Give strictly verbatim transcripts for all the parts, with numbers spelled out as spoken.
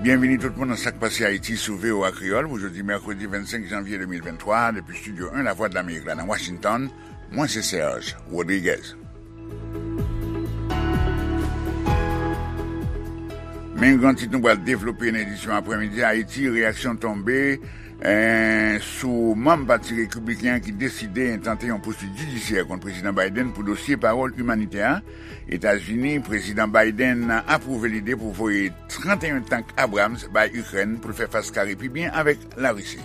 Byenvini tout moun nan Sa k Pase Ayiti sou V O A Kreyòl pou jodi mèkredi vennsenk janvye de mil venntwa, depi Estidyo en Lavwadlamerik la nan Washington. Mwen se Serge Rodriguez. Men gran tit nou pral devlope nan edisyon aprèmidi a: Ayiti, reyaksyon tonbe, eh, sou manm Pati Repibliken an ki deside entante yon pousuit jidisyè kont Prezidan Biden pou dosye pawòl imanitè a. Etazini, Prezidan Biden apwouve lide pou voye trannteyen tank Abrams bay Ikrèn pou l fè fas kare pi byen avèk Larisi.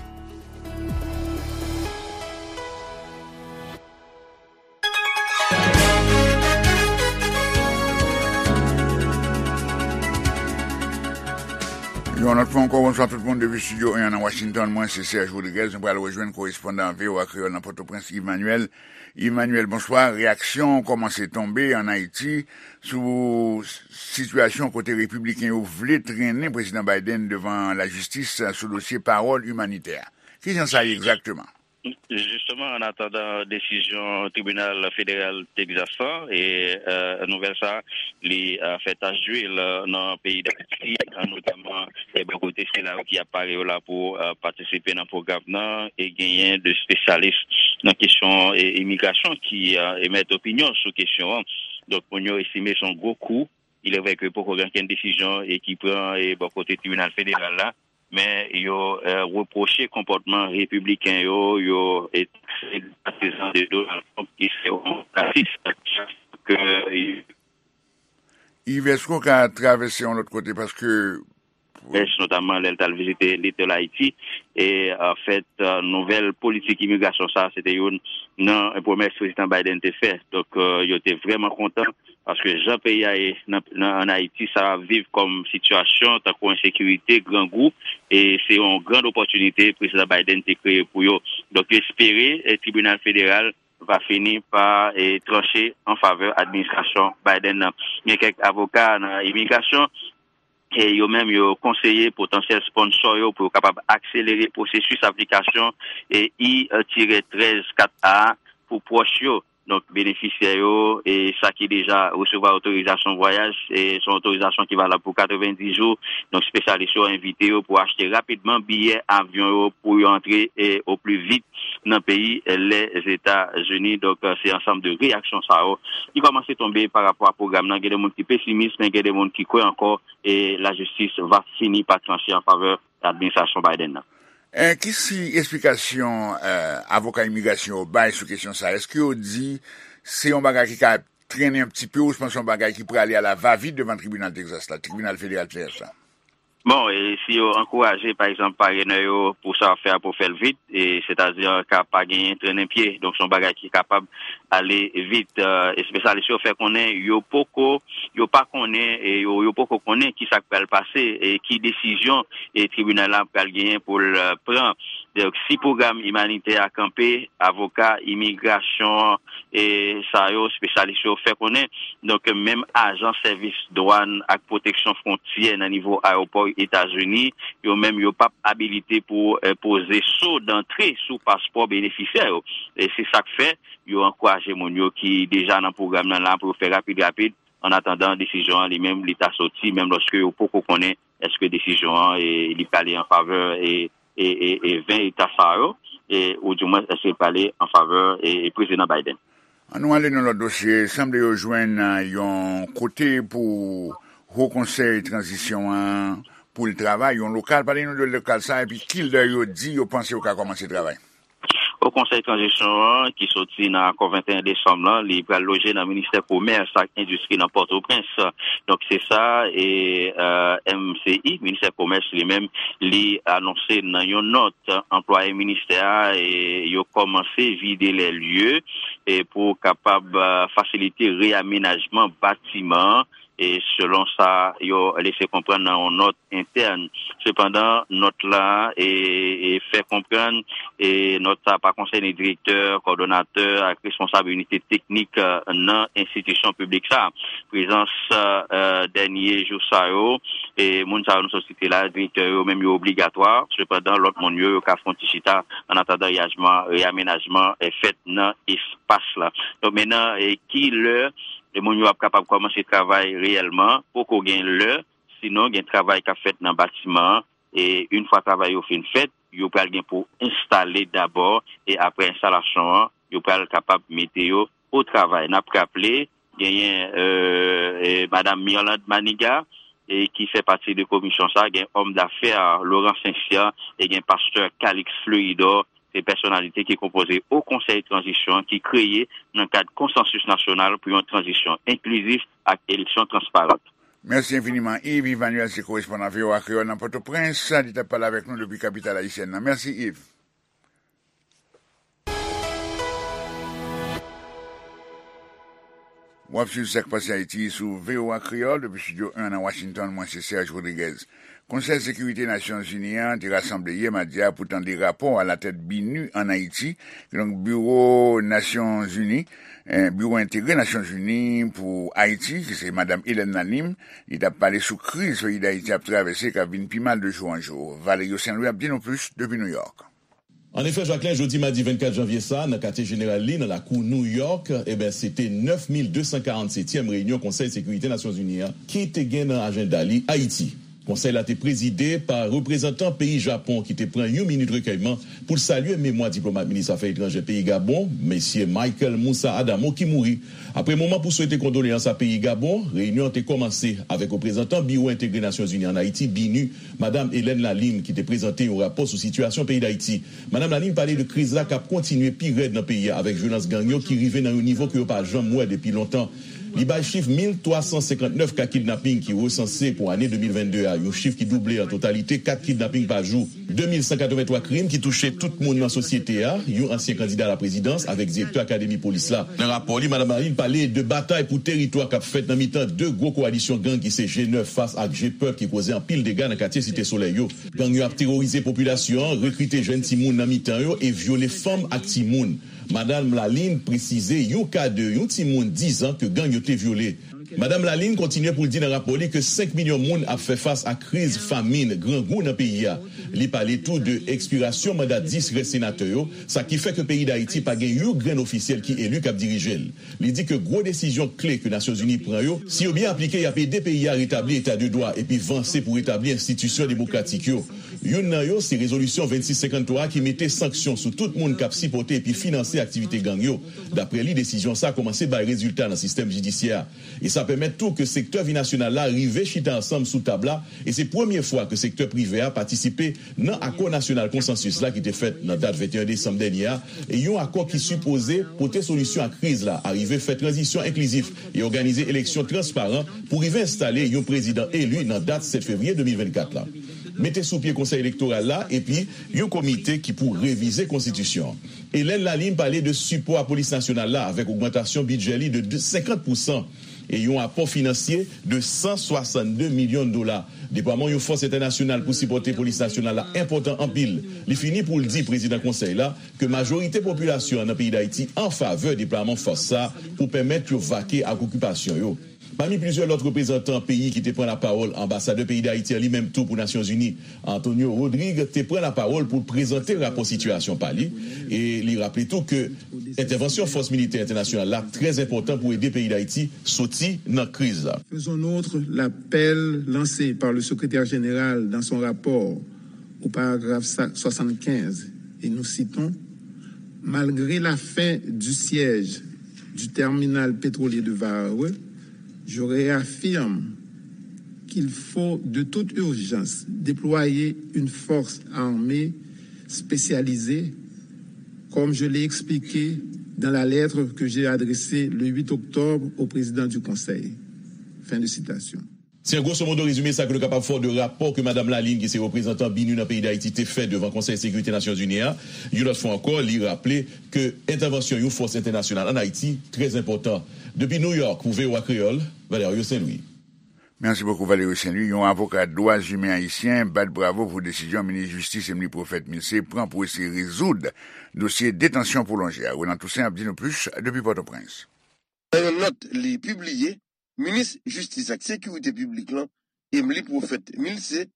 Yon lòt fwa ankò, bonswa tout moun depi Estidyo en an nan Washington. Mwen se Serge Rodriguez. Nou pral rejwenn korespondan V O A Kreyòl nan Pòtoprens, Yves Manuel. Yves Manuel, bonswa. Reyaksyon kòmanse tonbe ann Ayiti sou sitiyasyon kote repibliken yo vle trennen Prezidan Biden devan lajistis sou dosye pawòl imanitè a. Kijan sa ye egzakteman? Jisteman, an atandan desizyon tribinal federal Texas lan, e, e, nouvèl sa, li, e, fè tach dwil, e, nan peyi Dayiti, e, notaman, e, bò kote sila yo ki ap pare yo la pou, e, patisipe nan pwogram nan, e genyen de espesyalis nan kesyon, e, imigrasyon ki, e, emèt opinyon sou kesyon an. Donk, moun yo estime se yon gwo kou. Il est vrai que poko gen okenn desizyon, e, ki pran, e, bò kote tribinal federal la, men yo, e, repwoche konpòtman repibliken yo, yo, e, takse patizan de Donald Trump ki se yon rasis. Ke, e, Yves, èske w ka travèse yon lòt kote? Paske Pwès, notaman lè l t al vizite Little Haiti. E, anfèt, e, nouvèl politik imigrasyon sa a, se te youn nan pwomès Prezidan Biden te fè. Donk, e, yo te vrèman kontan, paske jan peyi a ye nan, nan, ann Ayiti, sa ap viv kòm sitiyasyon tankou ensekirite, grangou, e se yon gran opòtinite Prezidan Biden te kreye pou yo. Donk, yo espere, e, tribinal federal va fini pa, e, tranche an favè administrasyon Biden nan. Gen kèk avoka nan imigrasyon, e yo menm yo konseye potansyèl sponsò yo pou yo kapab akselere pwosesis aplikasyon, e, I tirè trèz kat A pou pwòch yo. Donk, benefisyè yo, e sa ki deja resevwa otorizasyon vwayaj, e se yon otorizasyon ki valab pou katrevenndis jou. Donk, espesyalis yo envite yo pou achte rapidman biyè avyon yo pou yo antre, e, o pli vit nan peyi, e, Lèzetazini. Donk, e, se ansanm de reyaksyon sa yo ki kòmanse tonbe pa rapò a pwogram nan. Gen de moun ki pesimis, men gen de moun ki kwè ankò e lajistis va fini pa tranche an favè administrasyon Biden nan. E, ki si esplikasyon, e, avoka imigrasyon yo bay sou kesyon sa a? Èske yo di se yon bagay ki ka trennen yon ti pe, ouswa se yon bagay ki prale a la va vit devan tribinal Texas la, tribinal federal Texas la? Bon, e si yo ankouraje, pa egzanp, parenè yo pou sa yo ap fè a pou fè l vit, e sètadi ka pa genyen trennen pye. Donk, se yon bagay ki kapab ale vit. E, espesyalis yo fè konnen yo poko, yo pa konnen, e yo, yo poko konnen ki sa k pral pase, e ki desizyon, e tribinal la pral genyen pou l, e, pran. Donk, si pwogram imanitè a kanpe, avoka imigrasyon, e sa yo, espesyalis yo fè konnen. Donk, menm ajan sèvis dwàn ak pwoteksyon fwontyè nan nivo ayewopò Etazini, yo menm yo p ap abilite pou, e, poze so dantre sou paspò benefisyè yo. E se sa k fè yo ankouraje moun yo ki deja nan pwogram nan la pou yo fè rapid rapid, an atandan desizyon an li menm li ta soti, menm lòske yo poko konnen èske desizyon an, e, li prale an favè, e, e, e, e ven eta sa yo, e, oudimwens èske li prale an favè, e, e Prezidan Biden. An nou ale nan lòt dosye. Sanble yo jwenn, e, yon kote pou Wo Konsèy Tranzisyon an pou l travay, yon lokal. Pale nou de lokal sa, epi kilè yo di yo panse yo ka kòmanse travay? Wo Konsèy Tranzisyon an, ki soti nan akò venteyen desanm lan, li pral loje nan Ministè Komès ak Endistri nan Pòtoprens. Donk, se sa, e, e, M C I, Ministè Komès li menm, li anonse nan yon nòt, anplwaye ministè a, e, yo kòmanse vide lè lye, e, pou kapab, e, fasilite reyamenajman batiman, e, selon sa yo lese konprann nan yon nòt entèn. Sepandan, nòt la, e, e, fè konprann, e, nòt sa pa konsène direktè, kòdonatè ak responsab inite teknik, e, nan enstitisyon piblik sa. Prezans, e, dènye jou sa yo, e, moun sa yo nou sot site la, direktè yo menm yo obligatwa. Sepandan, lòt moun yo, yo ka fè yon ti chita an atandan reyajman, reyamenajman, e, fèt nan espas la. Donk, mentnan, e, ki lè e moun yo ap kapab kòmanse travay reyèlman, poko gen lè, Sinon, gen travay k ap fèt nan batiman an, e yon fwa travay yo fin fèt, yo pral gen pou enstale dabò, e apre enstalasyon an, yo pral kapab mete yo o travay. N ap raple, genyen, e, e, Madam Mirlande Maniga, e ki fè pati de komisyon sa, gen òm dafè Laurent Saint-Cyr, e gen pastè Calix Fleuridor, se pèsonalite ki konpoze o Konsèy Tranzisyon an ki kreye nan kad konsansis nasyonal pou yon tranzisyon enklizif ak eleksyon transparan. Mèsi enfiniman, Yves. Yves Emmanuel se korespondan V O A Kreyòl nan Pòtoprens. Li t ap pale avèk nou depi kapital ayisyèn nan. Mèsi, Yves. W ap swiv Sa k Pase Ayiti sou V O A Kreyòl depi Estidyo en nan Washington. Mwen se Serge Rodriguez. Konsèy Sekirite Nasyonzini an te rasanble yè madi a pou tande rapò alatèt BINUH ann Ayiti, kidonk Biwo Nasyonzini, eh, Biwo Entegre Nasyonzini pou Ayiti, ki se Madam Hélène Lalim, li t ap pale sou kriz peyi Dayiti ap travèse k ap vin pi mal de jou an jou. Valerio Saint-Louis ap di nou plis depi Nouyòk. Annefè, Jacquelin, jodi madi vennkat janvye sa a, nan katye jeneral li, nan lakou Nouyòk, eben, se te nèf mil de san karannsetyèm reyinyon Konsèy Sekirite Nasyonzini an ki te gen nan ajanda li Ayiti. Konsèy la te prezide pa reprezantan peyi Japon ki te pran yon minit rekèyman pou l salye memwa diplomat minis afè etranjè peyi Gabon, mesye Michael Moussa Adamo, ki mouri. Apre moman pou swete kondoleyans a peyi Gabon, reyinyon an te kòmanse avèk reprezantan Biwo Entegre Nasyonzini ann Ayiti, BINUH, Madam Hélène Lalim, ki te prezante yon rapò sou sitiyasyon peyi Dayiti. Madam Lalim pale de kriz la k ap kontinye pi rèd nan peyi a, avèk vyolans gang yo ki rive nan yon nivo ke yo pa janm wè depi lontan. Li bay chif mil twa san senkannnèf ka kidnaping ki resanse pou ane de mil vennde a, yon chif ki double an totalite kat kidnaping pa jou. De mil san katrevenntwa krim ki touche tout moun nan sosyete a, yon ansyen kandida laprezidans avèk direktè akademi polis la. Nan rapò li, Madam Lalim pale de batay pou teritwa k ap fèt nan mitan de gwo kowalisyon gang ki se G nèf fas ak G pèp ki koze anpil dega nan katye Site Solèy yo. Gang yo ap teworize popilasyon an, rekrite jèn timoun nan mitan yo e vyole fanm ak timoun. Madam Lalim presize yon ka de yon timoun diz an ke gang yo te vyole. Madam Lalim kontinye pou l di nan rapò li ke senk milyon moun ap fè fas a kriz famin, grangou nan peyi a. Li pale tou de ekspirasyon manda dis rès senatè yo, sa ki fè ke peyi Dayiti pa gen yon grenn ofisyèl ki eli k ap dirije l. Li di ke gwo desizyon kle ke Nasyonzini pran yo, si yo byen aplike, y ap ede peyi a retabli eta de dwa epi vanse pou retabli enstitisyon demokratik yo. Youn nan yo se rezolisyon vennsis senkanntwa a ki mete sanksyon sou tout moun k ap sipòte epi finanse aktivite gang yo. Daprè li, desizyon sa a kòmanse bay rezilta nan sistèm jidisyè a. E sa pèmèt tou ke sektè vi nasyonal la rive chita ansanm sou tab la, e se premye fwa ke sektè prive a patisipe nan akò nasyonal konsansis la ki te fèt nan dat venteyen desanm dènye a, e yon akò ki sipoze pote solisyon a kriz la, arive fè tranzisyon enklizif e òganize eleksyon transparan pou rive enstale yon prezidan eli nan dat sèt fevriye de mil vennkat la. Mete sou pye Konsèy Elektoral la epi yon komite ki pou revize konstitisyon an. Hélène Lalim pale de sipò a Polis Nasyonal la avèk ogmantasyon bidjè li de senkant pousan e yon apò finansye de san swasannde milyon dola. Deplwaman yon fòs entènasyonal pou sipòte Polis Nasyonal la enpòtan anpil. Li fini pou l di prezidan konsèy la ke majorite popilasyon an nan peyi Dayiti an favè deplwaman fòs sa a pou pèmèt yo vake ak okipasyon yo. Pami plizyè lòt reprezantan peyi ki te pran lapawòl, anbasadè peyi Dayiti an li menm tou pou Nasyonzini, Antonio Rodrigue, te pran lapawòl pou l prezante rapò sitiyasyon pa li, e li raple tou ke entèvansyon fòs militè entènasyonal la trè enpòtan pou ede peyi Dayiti soti nan kriz la. Faisons nôtre l'appel lancé par le secrétaire général dans son rapport au paragraphe soixante-quinze, et nous citons: Malgré la fin du siège du terminal pétrolier de Varreux, je réaffirme qu'il faut de toute urgence déployer une force armée spécialisée, comme je l'ai expliqué dans la lettre que j'ai adressée le huit octobre au président du Conseil. Fin de citation. Se an gwosomodo rezime sa ke nou kapab fè w de rapò ke Madam Lalim, ki se reprezantan BINUH nan peyi Dayiti, te fè devan Konsèy Sekirite Nasyonzini a. Yon lòt fwa ankò, li raple ke entèvansyon yon fòs entènasyonal ann Ayiti trè enpòtan. Depi New York, pou V O A Kreyòl, Valerio Saint-Louis. Merci beaucoup, Valerio Saint-Louis. Yon avoka dwa imen ayisyen bat bravo pou desizyon minis jistis Emmelie Prophète-Milcé pran pou eseye rezoud dosye detansyon pwolonje a. Roland Toussaint ap di nou plis depi Pòtoprens. Nan yon nòt li pibliye, minis jistis ak sekirite piblik lan, Emmelie Prophète-Milcé,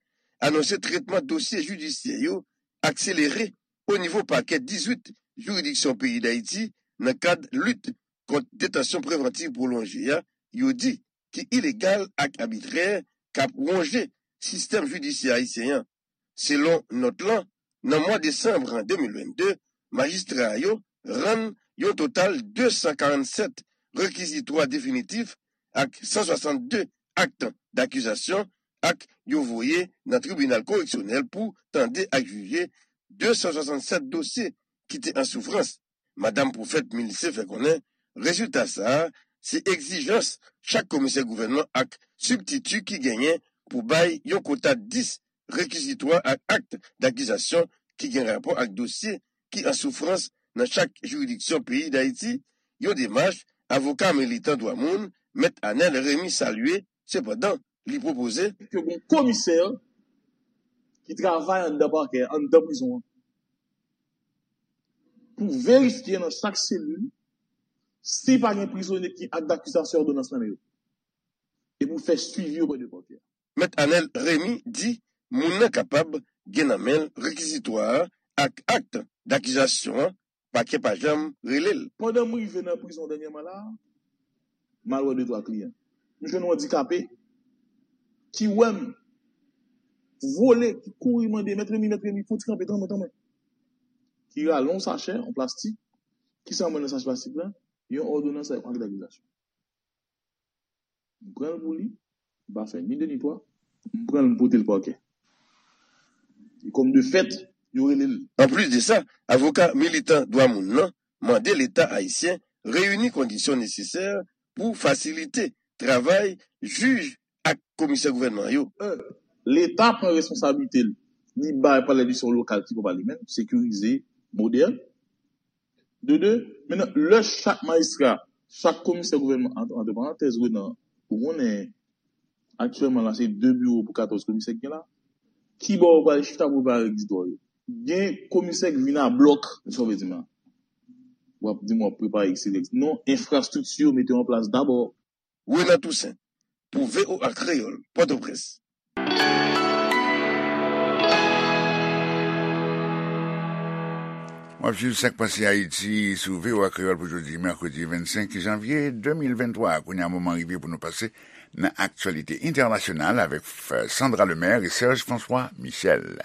anonse tretman dosye jidisyè yo akselere o nivo pakè dizuit jiridiksyon peyi Dayiti nan kad lit kont detansyon prevantiv pwolonje a, yo di ki ilegal ak abitrè, k ap wonje sistèm jidisyè ayisyen an. Selon nòt lan, nan mwa desanm de mil vennde, majistra yo rann yon total de san karannsèt rekizitwa definitif ak san swasannde ak dakizasyon, ak yo voye nan tribinal koreksyonèl pou tande ak jije de san swasannèt dosye ki te an soufrans. Madanm Pwofèt Milise fè konnen rezilta sa a se egzijans chak komisè gouvènman ak sibtiti ki genyen pou bay yon kota dis rekizitwa ak ak dakizasyon ki gen rapò ak dosye ki an soufrans nan chak jiridiksyon peyi Dayiti, yon demach avoka militan dwa moun, Mèt Anèl Remy salye. Sepandan, li pwopoze ke gon komisè ki travay anndan pakè, anndan prizon an, pou verifye nan chak selil si pa gen prizonye ki ak dakizasyon òdonans nan men yo, e pou fè swivi oprè de pakè. Mèt Anèl Remy di moun nan kapab gen nan men l rekizitwa a ak ak dakizasyon an, pakè pa janm rele l. Pandan m rive nan prizon dènyèman la a, m al wè de twa kliyan. M jwenn yon andikape ki wè m vole, ki kouri mande, "Mèt Remy, Mèt Remy, fon ti kanpe, tann mwen, tann mwen." Ki rale yon sachè, yon plastik. Kisa m wè nan sachè plastik la? Yon òdonans ak ak dakizasyon. M pran l pou li, m pa fè ni de ni twa, m pran l, m pote l pakè. E kòm de fèt, yo rele l. Anplis de sa, avoka militan dwa moun nan mande Leta ayisyen reyini kondisyon nesesè pou fasilite travay jij ak komisè gouvènman yo. Leta pran responsablite l, li bay Palè Lejislatif lokal ki pral li menm, sekirize, modèn. De de, mentnan, lè chak majistra, chak komisè gouvènman, ant, ant parantèz, Renan, ou konnen, aktyèlman la, se de biwo pou katòz komisè ki gen la. Kibò yo pral chita pou prepare egzitwa yo? Gen komisè ki vin a blòk, sa w vle di m la? W ap di m w ap prepare egzitwa. Non, enfrastrikti yo mete yo an plas dabò. Renan Toussaint, pou V O A Kreyòl, Pòtoprens. W ap swiv Sa k Pase Ayiti sou V O A Kreyòl pou jodi, mèkredi vennsenk janvye de mil venntwa. Kounye a, moman rive pou nou pase nan aktyalite entènasyonal avèk Sandra Lemaire e Serge François Michel.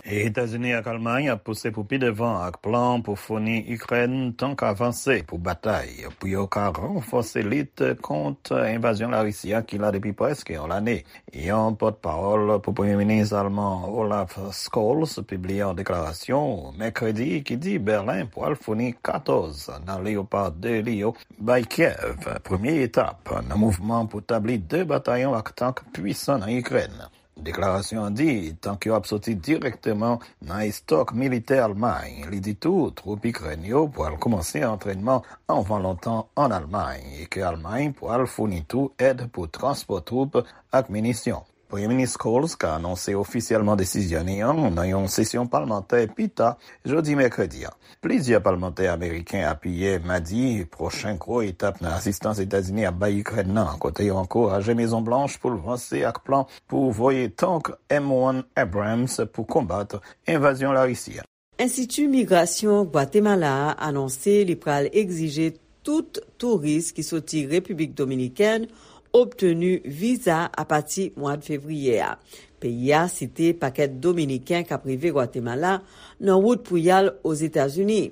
Etazini ak Almay ap pouse pou pi devan ak plan pou founi Ikrèn tank avanse pou batay, pou yo ka ranfòse lit kont envazyon Larisi a ki la depi prèske yon lane. Yon pòtpawòl pou Premye Minis alman Olaf Scholz pibliye yon deklarasyon mèkredi ki di Bèlen pral founi katòz nan Leopard de li yo bay Kyèv, premye etap nan mouvman pou tabli de batayon ak tank pwisan nan Ikrèn. Deklarasyon an di tank yo ap soti dirèkteman nan estòk militè Almay. Li di tou, twoup Ikrèn yo pral kòmanse antrènman anvan lontan ann Almay e ke Almay pral founi tou èd pou transpò twoup ak minisyon. Premye Minis Scholz ka anonse ofisyèlman desizyon li an nan yon sesyon palmantè pi ta jodi mèkredi a. Plizyè palmantè ameriken apiye madi pwochen gwo etap nan asistans Etazini ap bay Ikrèn nan, kote yo ankouraje Mezon Blanch pou l vanse ak plan pou voye tank M one Abrams pou konbat envazyon Larisi a. Enstiti Migrasyon Gwatemala a anonse li pral egzije tout touris ki soti Repiblik Dominikèn obteni viza apati mwa fevriye a. Peyi a site pakèt Dominiken k ap rive Gwatemala nan wout pou y al Ozetazini.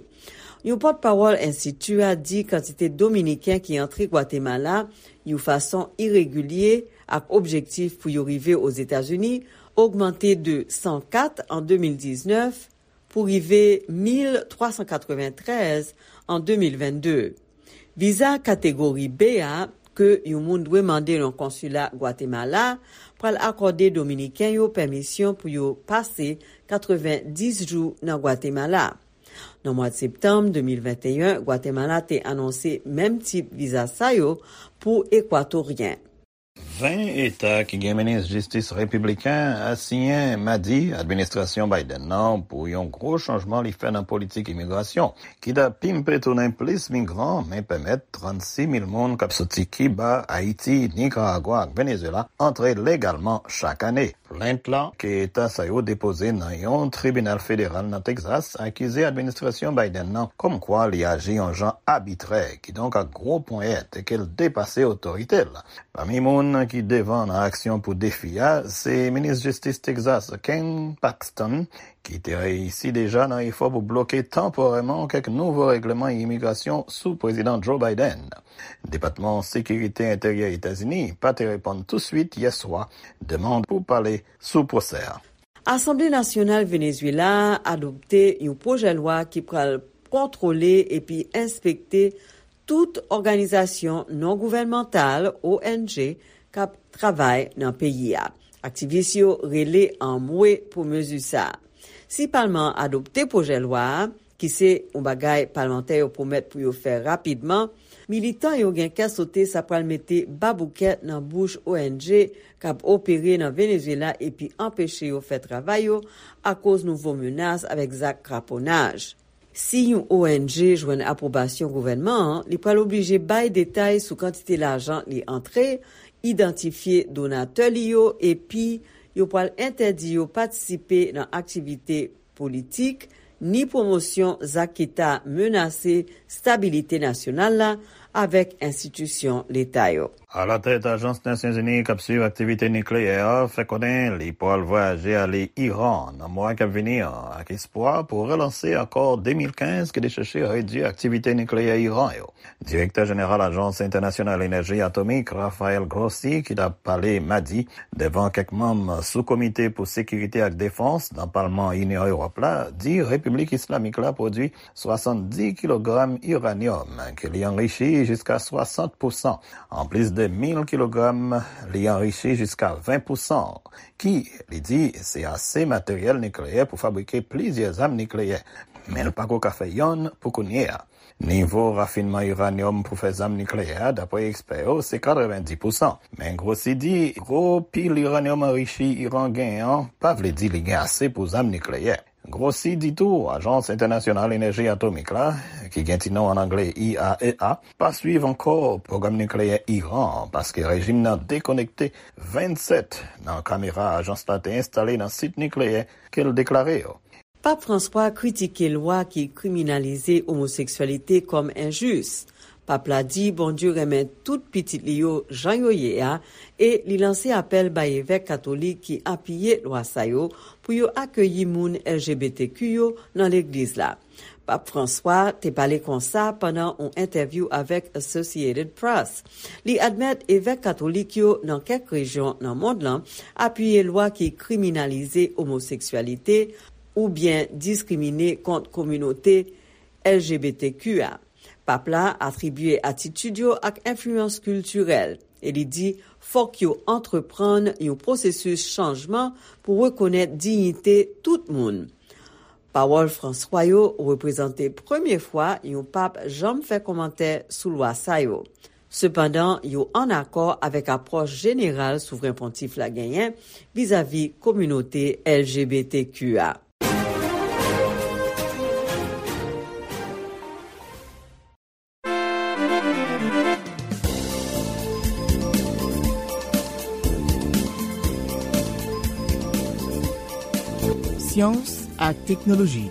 Yon pòtpawòl enstiti a di kantite Dominiken ki antre Gwatemala yon fason iregilye ak objektif pou yo rive Ozetazini ogmante de san kat an de mil diznèf pou rive mil twa san katreventrèz an de mil vennde. Viza kategori B a, ke yon moun dwe mande nan konsila Gwatemala, pral akòde Dominiken yo pèmisyon pou yo pase katrevendis jou nan Gwatemala. Nan mwa septanm de mil venteyen, Gwatemala te anonse menm tip viza sa yo pou Ekwatoryen. Ven eta ki gen minis jistis repibliken asiyen madi administrasyon Biden nan pou yon gwo chanjman li fè nan politik imigrasyon, ki ta pimpe tounen plis migran, men pèmèt trannsis mil moun k ap soti Kiba, Ayiti, Nikaragwa ak Venezuela antre legalman chak ane. Plent la ke eta sa yo depoze nan yon tribinal federal nan Texas akize administrasyon Biden nan kòmkwa li aji yon jan abitrè, kidonk ak gwo ponyèt, e ke l depase otorite l. Pami moun ki devan nan aksyon pou defi a, se minis jistis Texas, Ken Paxton, ki te reyisi deja nan efò pou bloke tanporèman kèk nouvo règleman imigrasyon sou Prezidan Joe Biden. Depatman Sekirite Enteryè Etazini pa te reponn touswit yè swa demann pou pale sou pwosè a. Asanble Nasyonal Venezuela a adopte yon pwojè lwa ki pral kontwole epi enspekte tout òganizasyon non gouvènmantal, O N G, k ap travay nan peyi a. Aktivis yo rele anmwe pou mezi sa a. Si palman an adopte pwojè lwa a, ki se yon bagay palmantè yo pwomèt pou yo fè rapidman, militan yo gen kè sote sa pral mete baboukèt nan bouch O N G k ap opere nan Venezuela epi anpeche yo fè travay yo akoz nouvo menas avèk zak kraponaj. Si yon O N G jwenn apwobasyon gouvènman an, li pral oblije bay detay sou kantite lajan li antre, idantifye donatè li yo, epi yo pral entèdi yo patisipe nan aktivite politik, ni pwomosyon zak ki ta menase stabilite nasyonal la avèk enstitisyon leta yo. Alatèt Ajans Nasyonzini k ap swiv aktivite nikleyè a fè konnen li pral vwayaje ale Iran nan mwa k ap vini an, ak espwa pou relanse akò de mil kenz ki te chèche redui aktivite nikleyè Iran yo. Direktè jeneral Ajans Entènasyonal Enèji Atomik, Rafael Grossi, ki t ap pale madi devan kèk manm sou komite pou sekirite ak defans nan palman Inyon Ewòp la, di Repiblik Islamik la pwodui swasanndis kilogram iranyòm ke li anrichi jiska swasant pousan, anplis de mil kilogram li anrichi jiska ven pousan, ki, li di, se ase materyèl nikleyè pou fabrike plizyè zam nikleyè. Men l pako ka fè yonn pou kounye a. Nivo rafinman iranyòm pou fè zam nikleyè a, dapre ekspè yo, se katrevenndis pousan. Men Grossi di, gwo pil iranyòm anrichi Iran genyen an pa vle di li gen ase pou zam nikleyè. Grossi di tou, Ajans Entènasyonal Enèji Atomik la, ki gen ti non an anglè I A E A, pa swiv ankò pwogram nikleyè Iran an, paske rejim nan dekonekte vennsèt nan kamera ajans la te enstale nan sit nikleyè ke l deklare yo. Pap Franswa kritike lwa ki kriminalize omoseksyalite kòm enjis. Pap la di Bondye renmen tout pitit li yo jan yo ye a, e li lanse apèl bay evèk katolik ki apiye lwa sa yo pou yo akeyi moun L G B T Q yo nan legliz la. Pap Franswa te pale konsa pandan yon entèvyou avèk Associated Press. Li admèt evèk katolik yo nan kèk rejyon nan mond lan apiye lwa ki kriminalize omoseksyalite oubyen diskrimine kont kominote L G B T Q a. Pap la atribye atitid yo ak enfliyans kiltirèl e li di fòk yo antreprann yon pwosesis chanjman pou rekonèt diyite tout moun. Pawòl Franswa yo reprezante premye fwa yon pap janm fè kòmantè sou lwa sa yo. Sepandan, yo ann akò avèk apwòch jeneral Souvren Pontif la genyen vizavi kominote L G B T Q a. Syans ak teknoloji,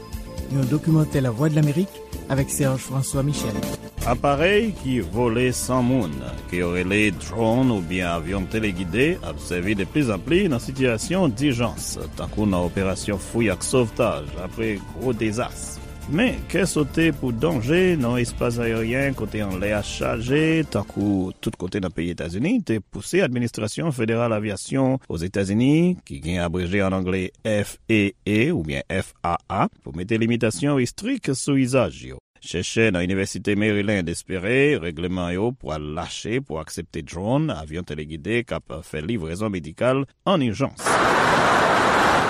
yon dokimantè Lavwadlamerik avèk Serge François Michel. Aparèy ki vole san moun, ke yo rele drone oubyen avyon telegide, ap sèvi de pli zan pli nan sitiyasyon dijans, tankou nan operasyon fouy ak sovtaj apre gwo dezas. Men, kè sote pou danje nan espas ayeryen kote anlè a chaje, tankou tout kote nan peyi Etazini, te pouse Administrasyon Federal Avyasyon Ozetazini, ki gen abreje an angle F A A oubyen F A A, pou mete limitasyon estrik sou izaj yo. Chèchè nan Inivèsite Maryland espere règleman yo pral lache pou aksepte drone, avyon telegide k ap fè livrezon medikal an ijans.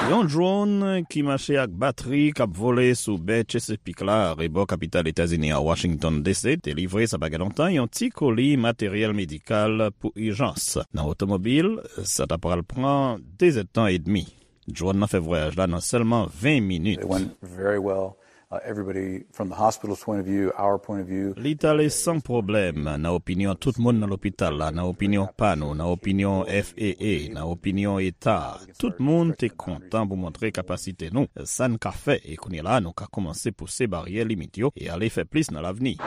Yon drone ki mache ak batri k ap vole sou bè Chesapeake la, rebò kapital Etazini an, Washington D C, te livre sa pa gen lontan yon ti koli materyèl medikal pou ijans. Nan otomobil, sa ta pral pran de zèdtan edmi. Drone nan fè vwayaj la nan sèlman ven minit. It went very well. Uh, everybody from the hospital's point of view, our point of view. Li t ale san pwoblèm, nan opinyon tout moun nan lopital la, nan opinyon pa nou, nan opinyon F A A, nan opinyon eta. Tout moun te kontan pou montre kapasite nou, sa n ka fè, e kounye la nou ka kòmanse pouse baryè limit yo e ale fè plis nan lavni.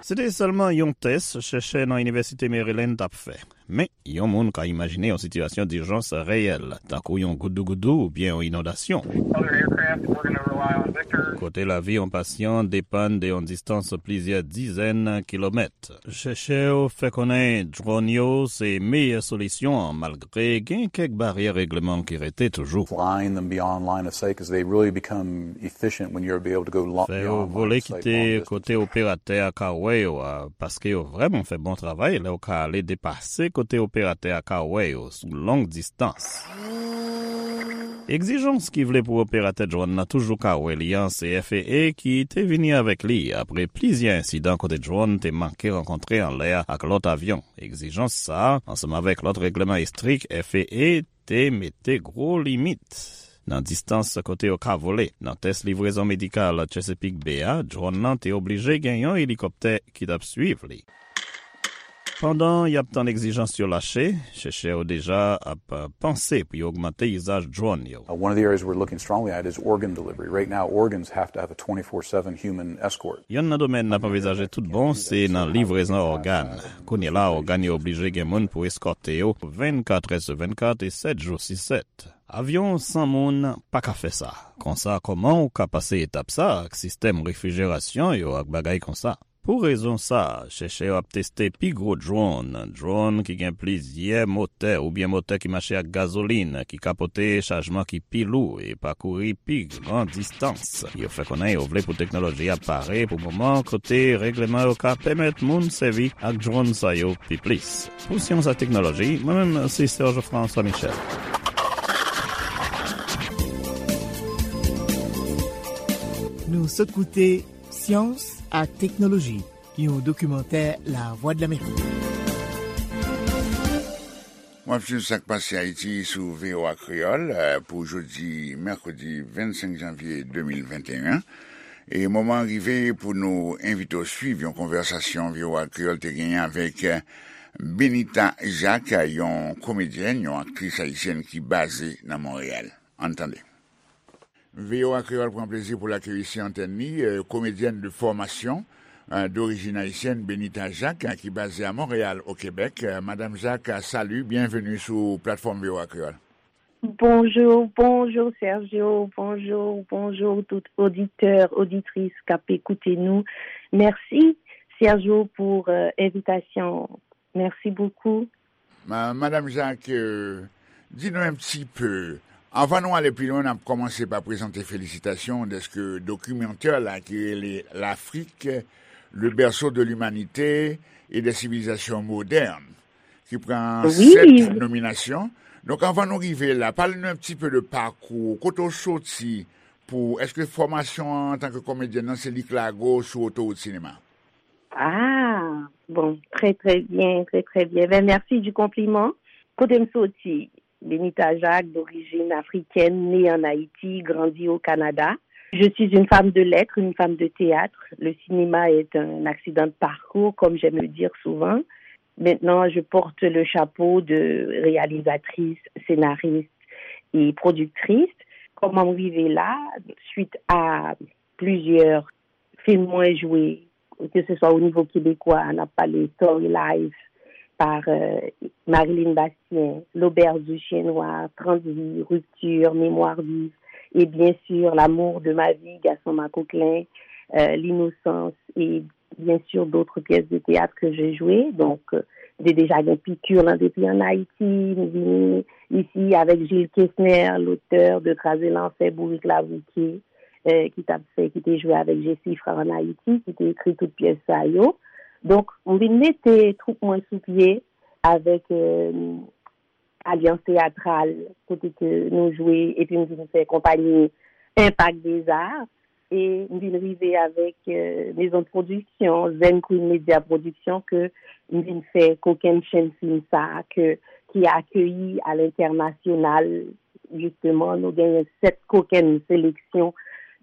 Se te sèlman yon tès chèchè nan Inivèsite Maryland t ap fè. Men, yon moun ka imajine yon sitiyasyon dijans reyèl, tankou yon goudougoudou oubyen yon inondasyon. Other aircraft, we're gonna rely on Victor. Kote lavi yon pasyan depann de yon distans plizyè dizèn kilomèt. Chèchè yo fè konnen drone yo se meyè solisyon an, malgre gen kèk baryè regleman ki rete toujou. Flying them beyond line of sight, 'cause they really become efficient when you're able to go lo- Fè yo beyond line vole of sight, kite long distance. Kote operatè a ka wè yo a, paske yo vrèman fè bon travay lè yo ka ale depase kote operatè a ka wè yo sou long distans. Egzijans ki vle pou operatè drone nan toujou ka wè li an, se F A A ki te vini avèk li apre plizyè ensidan kote drone te manke rankontre anlè a ak lòt avyon. Egzijans sa a, ansanm avèk lòt regleman estrik, F A A te mete gwo limit nan distans kote yo ka vole. Nan tès livrezon medikal Chesapeake Bay a, drone nan te oblije gen yon elikoptè ki t ap swiv li. Pandan y ap tann egzijans yo lache, chèchè yo deja ap, uh, panse pou yo ogmante izaj drone yo. Uh, one of the areas we're looking strongly at is organ delivery. Right now, organs have to have a twenty-four seven human escort. Yonn nan domèn n ap anvizaje tout bon, se nan livrezon ògàn. Kounye la, ògàn yo oblije gen moun pou eskòte yo vennkat è sou vennkat e sèt jou si sèt. Avyon san moun pa ka fè sa. Konsa, kòman ou ka pase etap sa ak sistèm refrijerasyon yo ak bagay konsa? Pou rezon sa, chèchè yo ap teste pi gwo drone, drone ki gen plizyè motè oubyen motè ki mache ak gazolin, ki ka pote chajman ki pi lou e pakouri pi gran distans. Yo fè konnen yo vle pou teknoloji a pare pou moman kote regleman yo ka pèmèt moun sèvi ak drone sa yo pi plis. Pou Syans ak Teknoloji, mwen menm se Serge François Michel. Nou sot koute Syans ak Teknoloji, yon dokimantè Lavwadlamerik. W ap swiv Sa k Pase Ayiti sou V O A Kreyòl, eh, pou jodi mèkredi vennsenk janvye de mil venteyen. E moman an rive pou nou envite w swiv yon konvèsasyon V O A Kreyòl te genyen avèk, eh, Benita Jacques, yon komedyèn, yon aktris ayisyèn ki baze nan Monreyal. Ann tande. V O A Kreyòl pran plezi pou l akeyi sou antèn li, eh, komedyèn de fòmasyon, eh, dorijin ayisyèn, Benita Jacques, eh, ki baze a Monreyal, o Kebèk. Eh, Madam Jacques, salut, bienvenue sou platfòm V O A Kreyòl. Bonjour, bonjour Sergio, bonjour, bonjour tout auditeur, auditrice k ap ekoute nou. Mèsi Sergio pou, euh, envitasyon. Mèsi bokou. Ma-, Madam Jacques, euh, di nou un petit peu. Anvan nou ale pi lwen, n ap kòmanse pa prezante felisitasyon dèske dokimantè la ki rele L'Afrique, le berceau de l'humanité et des civilisations modernes, ki pran wi, sèt nominasyon. Donk, anvan nou rive la, pale nou un petit peu de pakou, kote w soti, pou, èske fòmasyon an antanke komedyèn nan se li k lage w sou otowout sinema? Ah, bon, très, très bien, très, très bien. Ben, merci du compliment. Kote m soti, Benita Jacques, d'origine africaine, née en Haïti, grandi au Canada. Je suis une femme de lettres, une femme de théâtre. Le cinéma est un accident de parcours, comme j'aime le dire souvent. Maintenant, je porte le chapeau de réalisatrice, scénariste et productrice. Kòman m rive la? Suite à plusieurs film mwen jwe, ke se swa o nivo kebekwa, n ap pale Story Life, par, euh, Marilyn Bastien, L'Auberge du Chien Noir, Trente vies, Rupture, Mémoire vive, et bien sûr, L'amour de ma vie, Gaston Macoquelin, euh, L'innocence, et bien sûr, d'autres pièces de théâtre que j'ai jouées. Donc, euh, m te deja gen pikir lan depi an Ayiti, m vini isi avèk Gilles Kesner, l'auteur de Kraze Lanfè, Bourik Labouke, eh, ki t ap fè, ki te jwe avèk Jesifra an Ayiti, ki te ekri tout pyès sa yo. Donk, m vin mete twoup mwen sou pye avèk, eh, Alyans Teyatral, kote ke nou jwe, epi m vin fè konpayi Impact des Arts, e m vin rive avèk, euh, Maison de Production, Zen Queen Media Production, ke m vin fè kokenn chenn fim sa a, ke, ki akeyi a lentènasyonal. Jisteman, nou genyen sèt kokenn seleksyon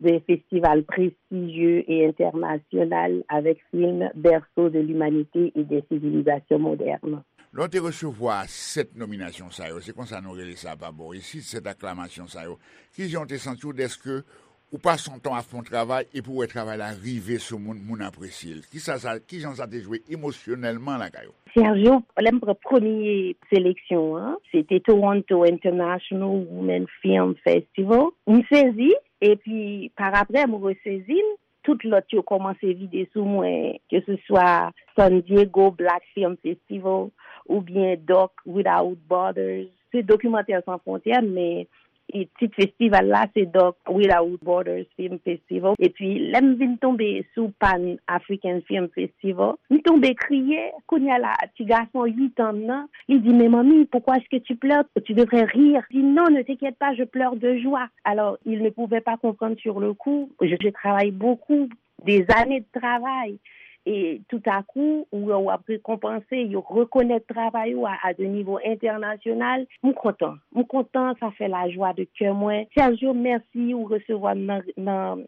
de festival prestijye e entènasyonal avèk fim Berceau de l'humanité et des civilisations modernes. Lè w te resevwa sèt nominasyon sa yo, se konsa nou rele sa pa bò isit, sèt aklamasyon sa yo, kijan w te santi w dèske ou pase yon tan w ap fè yon travay epi w wè travay la rive sou moun, moun apresye l? Kisa sa, kijan sa te jwe emosyonèlman lakay ou? Sergio, lè m pran premye seleksyon an, se te Toronto International Women Film Festival. M sezi, epi parapre m resezi m, tout lòt yo kòmanse vide sou mwen, ke se swa San Diego Black Film Festival oubyen Doc Without Borders. Se Dokimantè San Fwontyè, men e tit festival la se Doc Without Borders Film Festival. Epi lè m vin tonbe sou Pan African Film Festival, m tonbe kriye. Kounye a la, ti gason uit an nan, li di, "Mais mamie, pourquoi est-ce que tu pleures? Tu devrais rire." Je dis, "Non, ne t'inquiète pas, je pleure de joie." Alors, il ne pouvait pas comprendre sur le coup. Je, je travaille beaucoup, des années de travail. E toutakou, ou wè w ap rekonpanse, yo rekonèt travay ou a, a de nivo entènasyonal. M kontan. M kontan, sa fè lajwa de kè mwen. Sergio, mèsi ou resevwa m nan, nan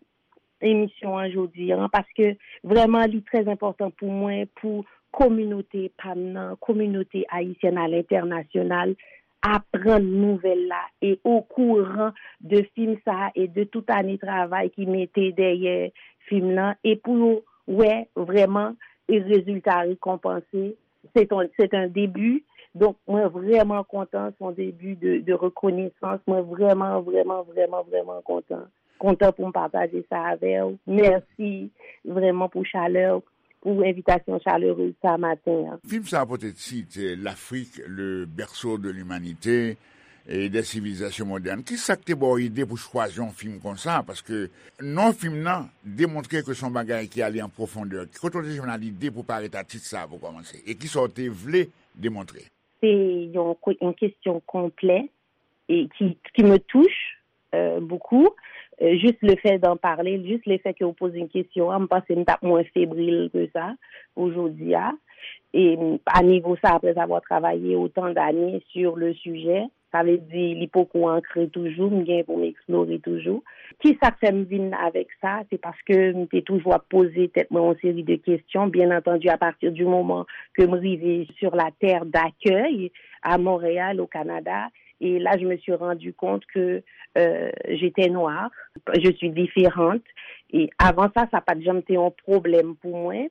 emisyon an jodi an, paske vrèman li trè enpòtan pou mwen, pou kominote pa m nan, kominote ayisyèn a lentènasyonal, aprann nouvèl la e okouran de fim sa a e de tout ane travay ki mete dèyè fim nan, e pou yo wè vrèman e rezilta rekonpanse. Se ton, se un début. Donk, mwen vrèman kontan, se yon debi de, de rekonesans. Mwen vrèman, vrèman, vrèman, vrèman kontan. Kontan pou m pataje sa avè w. Mèsi vrèman pou chalè w, pou envitasyon chalerez sa maten an. Fim sa a pote tit, eh, L'Afrique, le berceau de l'humanité et des civilisations modernes. Kisa k te ba w ide pou chwazi yon fim konsa? Paske non fim nan demontre ke se yon bagay ki ale an pwofondè. Kote w te jwenn lide pou parèt a tit sa a pou kòmanse? E kisa w te vle demontre? Se yon, yon kesyon konplè e ki, qui me touche, euh, beaucoup. Euh, juste le fait d'en parler, juste le fait que vous posez une question, m panse m t ap mwen febrile que ça pou jodi a. E a nivo sa, après avoir travaillé autant d'années sur le sujet, sa vle di li poko ankre toujou, m gen pou m eksplore toujou. Kisa k fè m vin avèk sa? Se paske m te toujou ap poze tèt mwen yon seri de kesyon. Bien entendu, à partir du moment que m rive sur la terre d'accueil, à Montréal, au Canada, et là, je me suis rendu compte que, euh, j'étais noire, je suis différente. E avan sa, sa pa t janm te yon pwoblèm pou mwen.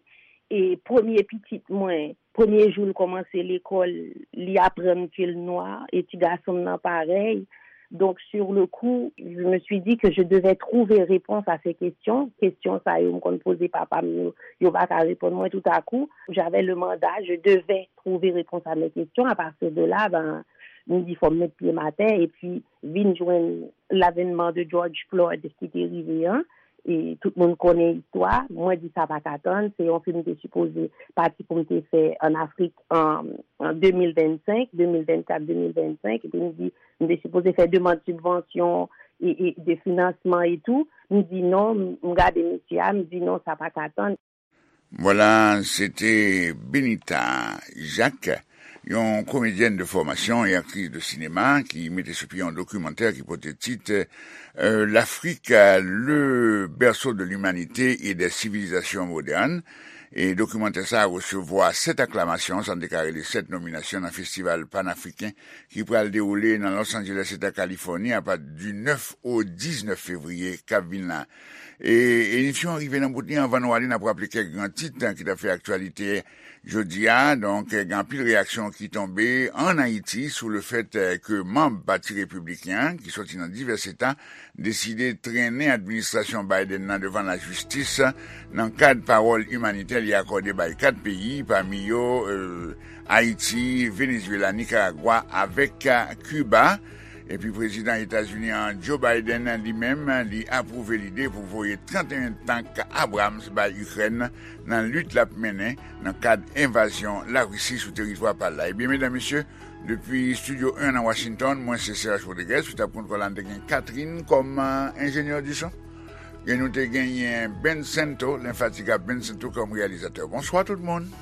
E premye pitit mwen, premye jou l kòmanse lekòl, li aprann ke l nwa, e ti gason m nan parèy. Donc, sur le coup, je me suis dit que je devais trouver réponse à ces questions. Kesyon sa yo m konn poze papa m yo, yo pa ka reponn mwen tout à coup. J'avais le mandat, je devais trouver réponse à mes questions. À partir de là, ben, m di fò m met pye m atè, epi vin jwenn l'avènement de George Floyd ki te rive an. E tout moun konnen istwa. Mwen di sa pa ka tann. Se yon fim m te sipoze pati pou m te fè an Afrik an, an de mil vennsenk, de mil vennkat, de mil vennsenk. Epi m di, m te sipoze fè demann sibvansyon e, e de finansman e tou. M di non, m, m gade mesye a, m di non, sa pa ka tann. Vwala, se te Benita Jacques, yon komedyèn de fòmasyon e aktris de sinema, ki mete sou pye yon dokimantè ki pote tit, euh, L'Afrique, le berceau de l'humanité et des civilisations modernes. E dokimantè sa a resevwa sèt aklamasyon, sa n te ka rele sèt nominasyon nan festival panafriken ki pral dewoule nan Los Angeles, eta Kalifòni, apati di nèf o diznèf fevriye k ap vin la. E emisyon an rive nan bout li. Anvan nou ale, n ap raple kèk gran tit, eh, ki t ap fè aktyalite jodi a. Donk, eh, gen anpil reyaksyon ki tonbe ann Ayiti sou le fèt, eh, ke manm Pati Repibliken an, ki sòti nan divès eta, deside trennen administrasyon Biden nan devan lajistis nan kad pawòl imanitè li akòde bay kat peyi, pami yo, eh, Ayiti, Venezuela, Nicaragua avèk, eh, Kiba. Epi prezidan Etazini an, Joe Biden, li menm, li apwouve lide pou voye trannteyen tank Abrams bay Ikrèn nan lit l ap mennen nan kad envazyon Larisi sou teritwa pa l la. Ebyen, medam, mesye, depi Estidyo en nan Washington, mwen se Serge Rodriguez, sou tab kontwòl la, n te gen Catherine kòm, euh, enjenyè di son. E nou te genyen Ben Sento, lenfatigab Ben Sento kòm reyalizatè. Bonswa tout moun.